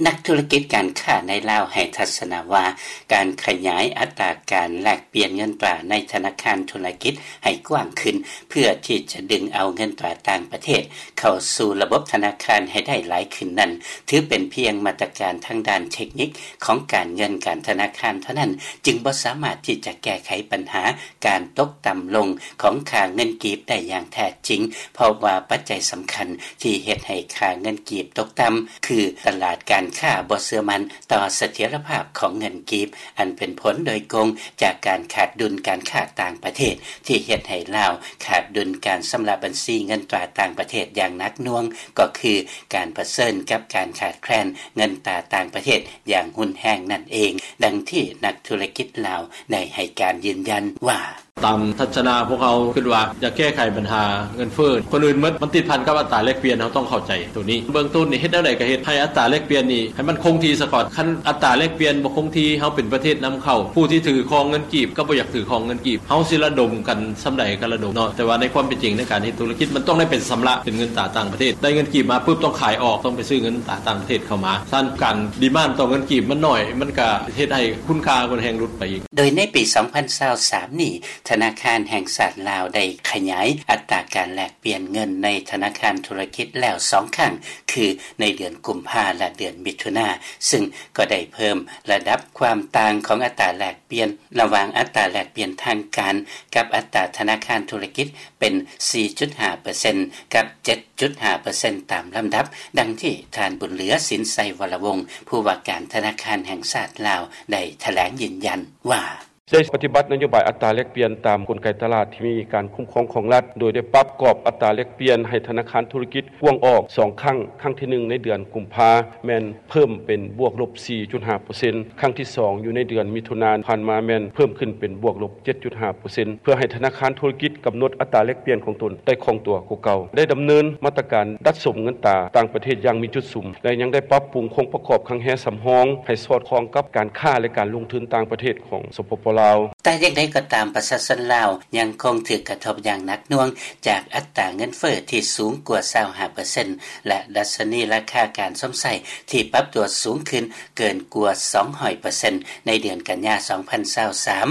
ນັກທຸລະກິດການຄ້າໃນລາວໃຫ້ທັດສະນະວ່າ ການຂະຫຍາຍອັດຕາການແລກປ່ຽນເງິນຕາໃນທະນາຄານທຸລະກິດໃຫ້ກວ້າງຂຶ້ນ ເພື່ອທີ່ຈະດຶງເອົາເງິນຕາຕ່າງປະເທດເຂົ້າສູ່ລະບົບທະນາຄານໃຫ້ໄດ້ຫຼາຍຂຶ້ນນັ້ນ ຖືເປັນພຽງມາດຕະການທາງດ້ານເທັກນິກຂອງການເງິນການທະນາຄານເທົ່ານັ້ນ ຈຶ່ງບໍ່ສາມາດທີ່ຈະແກ້ໄຂບັນຫາການຕົກຕ່ຳລົງຂອງຄ່າເງິນກີບໄດ້ຢ່າງແທ້ຈິງ ເພາະວ່າປັດໄຈສຳຄັນທີ່ເຮັດໃຫ້ຄ່າເງິນກີບຕົກຕ່ຳ ຄືຕະຫຼາດການຄ້າບໍ່ເຊື່ອໝັ້ນຕໍ່ສະຖຽນລະພາບຂອງເງິນກີບ ອັນເປັນຜົນໂດຍກົງຈາກການຂາດດຸນການຄ້າຕ່າງປະເທດ ທີ່ເຮັດໃຫ້ລາວຂາດດຸນການຊຳລະບັນຊີເງິນຕາຕ່າງປະເທດຢ່າງໜັກໜ່ວງ ກໍຄືການປະເຊີນກັບການຂາດແຄລນເງິນຕາຕ່າງປະເທດຢ່າງຮຸນແຮງນັ້ນເອງ, ດັ່ງທີ່ນັກທຸລະກິດລາວໄດ້ໃຫ້ການຢືນຢັນວ່າ: ຕາມທັດສະນະພວກເຮົາຄິດວ່າ ຢາກແກ້ໄຂບັນຫາເງິນເຟີ້ ຄົນອື່ນໝົດ ມັນຕິດພັນກັບອັດຕາແລກປ່ຽນ ເຮົາຕ້ອງເຂົ້າໃຈໂຕນີ້. ເບື້ອງຕົ້ນນີ້ ເຮັດແນວໃດກໍເຮັດໃຫ້ອັດຕາແລກປ່ຽນນີ້ ໃຫ້ມັນຄົງທີ່ສາກ່ອນ. ຄັນອັດຕາແລກປ່ຽນບໍ່ຄົງທີ່ ເຮົາເປັນປະເທດນຳເຂົ້າ ຜູ້ທີ່ຖືຄອງເງິນກີບກໍບໍ່ຢາກຖືຄອງເງິນກີບ. ເຮົາຊິລະດົມກັນສ່ຳໃດກໍລະດົມເນາະ, ແຕ່ວ່າໃນຄວາມເປັນຈິງ ໃນການເຮັດທຸລະກິດ ມັນຕ້ອງໄດ້ເປັນຊຳລະເປັນເງິນຕາຕ່າງປະເທດ. ໄດ້ເງິນກີບມາປຶບ ຕ້ອງຂາຍອອກ ຕ້ອງໄປຊື້ເງິນຕາຕ່າງປະເທດເຂົ້າມາ. ສະນັ້ນ ການດີມານຕໍ່ເງິນກີບມັນໜ້ອຍ ມັນກໍເຮັດໃຫ້ຄຸນຄ່າມັນແຮງຫຼຸດໄປອີກ. ໂດຍໃນປີສອງພັນຊາວສາມນີ້ ທະນາຄານແຫ່ງຊາດລາວໄດ້ຂະຫຍາຍອັດຕາການແລກປ່ຽນເງິນໃນທະນາຄານທຸລະກິດແລ້ວສອງຄັ້ງ ຄືໃນເດືອນກຸມພາ ແລະ ເດືອນມິຖຸນາ, ຊຶ່ງກໍໄດ້ເພີ່ມລະດັບຄວາມຕ່າງຂອງອັດຕາແລກປ່ຽນ ລະຫວ່າງອັດຕາແລກປ່ຽນທາງການກັບອັດຕາທະນາຄານທຸລະກິດເປັນສີ່ຈຸດຫ້າເປີເຊັນ ກັບເຈັດຈຸດຫ້າເປີເຊັນຕາມລຳດັບ, ດັ່ງທີ່ທ່ານ ບຸນເຫຼືອ ສິນໄຊວໍລະວົງ ຜູ້ວ່າການທະນາຄານແຫ່ງຊາດລາວ ໄດ້ຖະແຫຼງຢືນຢັນວ່າ: ໄດ້ປະຕິບັດນະໂຍບາຍອັດຕາແລກປ່ຽນຕາມກົນໄກຕະຫຼາດທີ່ມີການຄຸ້ມຄອງຂອງລັດ, ໂດຍໄດ້ປັບກອບອັດຕາແລກປ່ຽນໃຫ້ທະນາຄານທຸລະກິດກວ້າງອອກສອງຄັ້ງ, ຄັ້ງທີໜຶ່ງໃນເດືອນກຸມພາ ແມ່ນເພີ່ມເປັນບວກລົບສີ່ຈຸດຫ້າເປີເຊັນ, ຄັ້ງທີສອງຢູ່ໃນເດືອນມິຖຸນາຜ່ານມາ ແມ່ນເພີ່ມຂຶ້ນເປັນບວກລົບເຈັດຈຸດຫ້າເປີເຊັນ ເພື່ອໃຫ້ທະນາຄານທຸລະກິດກຳນົດອັດຕາແລກປ່ຽນຂອງຕົນໄດ້ຄ່ອງຕົວກວ່າເກົ່າ, ໄດ້ດຳເນີນມາດຕະການດັດສົມເງິນຕາຕ່າງປະເທດຢ່າງມີຈຸດສຸມ ແລະ ຍັງໄດ້ປັບປຸງໂຄງປະກອບຄັງແຮສຳຮອງໃຫ້ສອດຄ່ອງກັບການຄ້າ ແລະ ການລົງທຶນຕ່າງປະເທດຂອງ ສປປ ລາວ. ແຕ່ຢ່າງໃດກໍຕາມ, ປະຊາຊົນລາວຍັງຄົງຖືກກະທົບຢ່າງໜັກໜ່ວງຈາກອັດຕາເງິນເຟີ້ທີ່ສູງກວ່າຊາວຫ້າເປີເຊັນ ແລະ ດັດຊະນີລາຄາການຊົມໃຊ້ທີ່ປັບຕົວສູງຂຶ້ນເກີນກວ່າສອງຮ້ອຍເປີເຊັນໃນເດືອນກັນຍາສອງພັນຊາວສາມ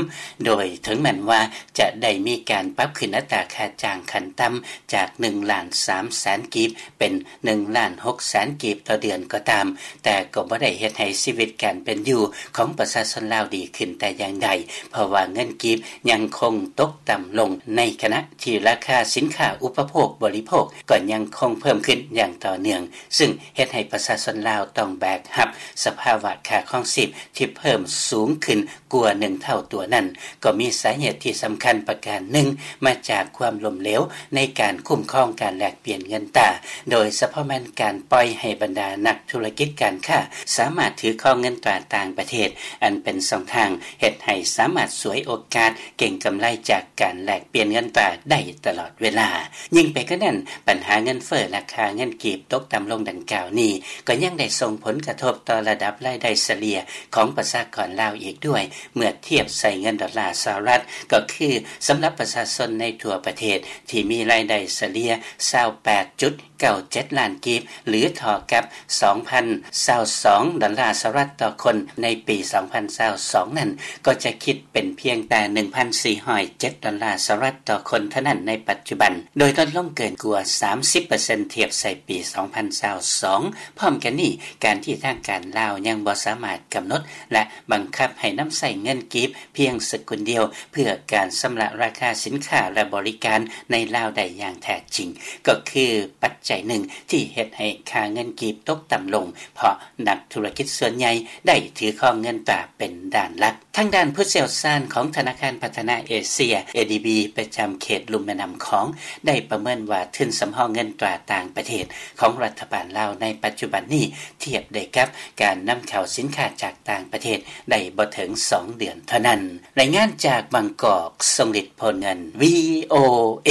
ໂດຍເຖິງແມ່ນວ່າຈະໄດ້ມີການປັບຂຶ້ນອັດຕາຄ່າຈ້າງຂັ້ນຕ່ຳຈາກໜຶ່ງລ້ານສາມແສນກີບ ເປັນໜຶ່ງລ້ານຫົກແສນກີບຕໍ່ເດືອນກໍຕາມ, ແຕ່ກໍບໍ່ໄດ້ເຮັດໃຫ້ຊີວິດການເປັນຢູ່ຂອງປະຊາຊົນລາວດີຂຶ້ນແຕ່ຢ່າງໃດ, ເພາະວ່າເງິນກີບຍັງຄົງຕົກຕ່ຳລົງ, ໃນຂະນະທີ່ລາຄາສິນຄ້າອຸປະໂພກບໍລິໂພກກໍຍັງຄົງເພີ່ມຂຶ້ນຢ່າງຕໍ່ເນື່ອງ, ຊຶ່ງເຮັດໃຫ້ປະຊາຊົນລາວຕ້ອງແບກຮັບສະພາວະຄ່າຄອງຊີບທີ່ເພີ່ມສູງຂຶ້ນ ກວ່າໜຶ່ງເທົ່າຕົວນັ້ນ ກໍມີສາເຫດທີ່ສຳຄັນປະການໜຶ່ງມາຈາກຄວາມລົ້ມເຫຼວໃນການຄຸ້ມຄອງການແລກປ່ຽນເງິນຕາ, ໂດຍສະເພາະແມ່ນການປ່ອຍໃຫ້ບັນດານັກທຸລະກິດການຄ້າສາມາດຖືຄອງເງິນຕາຕ່າງປະເທດ ອັນເປັນຊ່ອງທາງເຮັດໃຫ້ສາມາດສວຍໂອກາດເກັງກຳໄລຈາກການແລກປ່ຽນເງິນຕາໄດ້ຕະຫຼອດເວລາ. ຍິ່ງໄປກວ່ານັ້ນ, ບັນຫາເງິນເຟີ້ ລາຄາເງິນກີບຕົກຕ່ຳລົງດັ່ງກ່າວນີ້ ກໍຍັງໄດ້ສົ່ງຜົນກະທົບຕໍ່ລະດັບລາຍໄດ້ສະເລ່ຍຂອງປະຊາກອນລາວອີກດ້ວຍ ເມື່ອທຽບໃສ່ເງິນດອນລາສະຫະລັດ, ກໍຄືສຳລັບປະຊາຊົນໃນທົ່ວປະເທດທີ່ມີລາຍໄດ້ສະເລ່ຍຊາວແປດຈຸດເກົ້າເຈັດລ້ານກີບ ຫຼື ເທົ່າກັບສອງພັນຊາວສອງດອນລາສະຫະລັດຕໍ່ຄົນໃນປີສອງພັນຊາວສອງນັ້ນ ກໍຈະຄິດເປັນພຽງແຕ່ໜຶ່ງພັນສີ່ຮ້ອຍເຈັດດອນລາສະຫະລັດຕໍ່ຄົນເທົ່ານັ້ນໃນປັດຈຸບັນ, ໂດຍລົດລົງເກີນກວ່າສາມສິບເປີເຊັນທຽບໃສ່ປີສອງພັນຊາວສອງ. ພ້ອມກັນນີ້, ການທີ່ທາງການລາວຍັງບໍ່ສາມາດກຳນົດ ແລະ ບັງຄັບໃຫ້ນຳໃຊ້ເງິນກີບພຽງສະກຸນດຽວ ເພື່ອການຊຳລະລາຄາສິນຄ້າ ແລະ ບໍລິການໃນລາວໄດ້ຢ່າງແທ້ຈິງ ກໍຄືປັດໄຈໜຶ່ງທີ່ເຮັດໃຫ້ຄ່າເງິນກີບຕົກຕ່ຳລົງ ເພາະນັກທຸລະກິດສ່ວນໃຫຍ່ໄດ້ຖືຄອງເງິນຕາເປັນດ້ານຫຼັກ. ທາງດ້ານຜູ້ຊ່ຽວຊານຂອງທະນາຄານພັດທະນາເອເຊຍ ເອດີບີ ປະຈຳເຂດລຸ່ມແມ່ນ້ຳຂອງ ໄດ້ປະເມີນວ່າທຶນສຳຮອງເງິນຕາຕ່າງປະເທດຂອງລັດຖະບານລາວໃນປັດຈຸບັນນີ້ ທຽບໄດ້ກັບການນຳເຂົ້າສິນຄ້າຈາກຕ່າງປະເທດໄດ້ບໍ່ເຖິງສອງເດືອນເທົ່ານັ້ນ. ລາຍງານຈາກບາງກອກ, ຊົງລິດ ໂພນເງິນ ວີໂອເອ.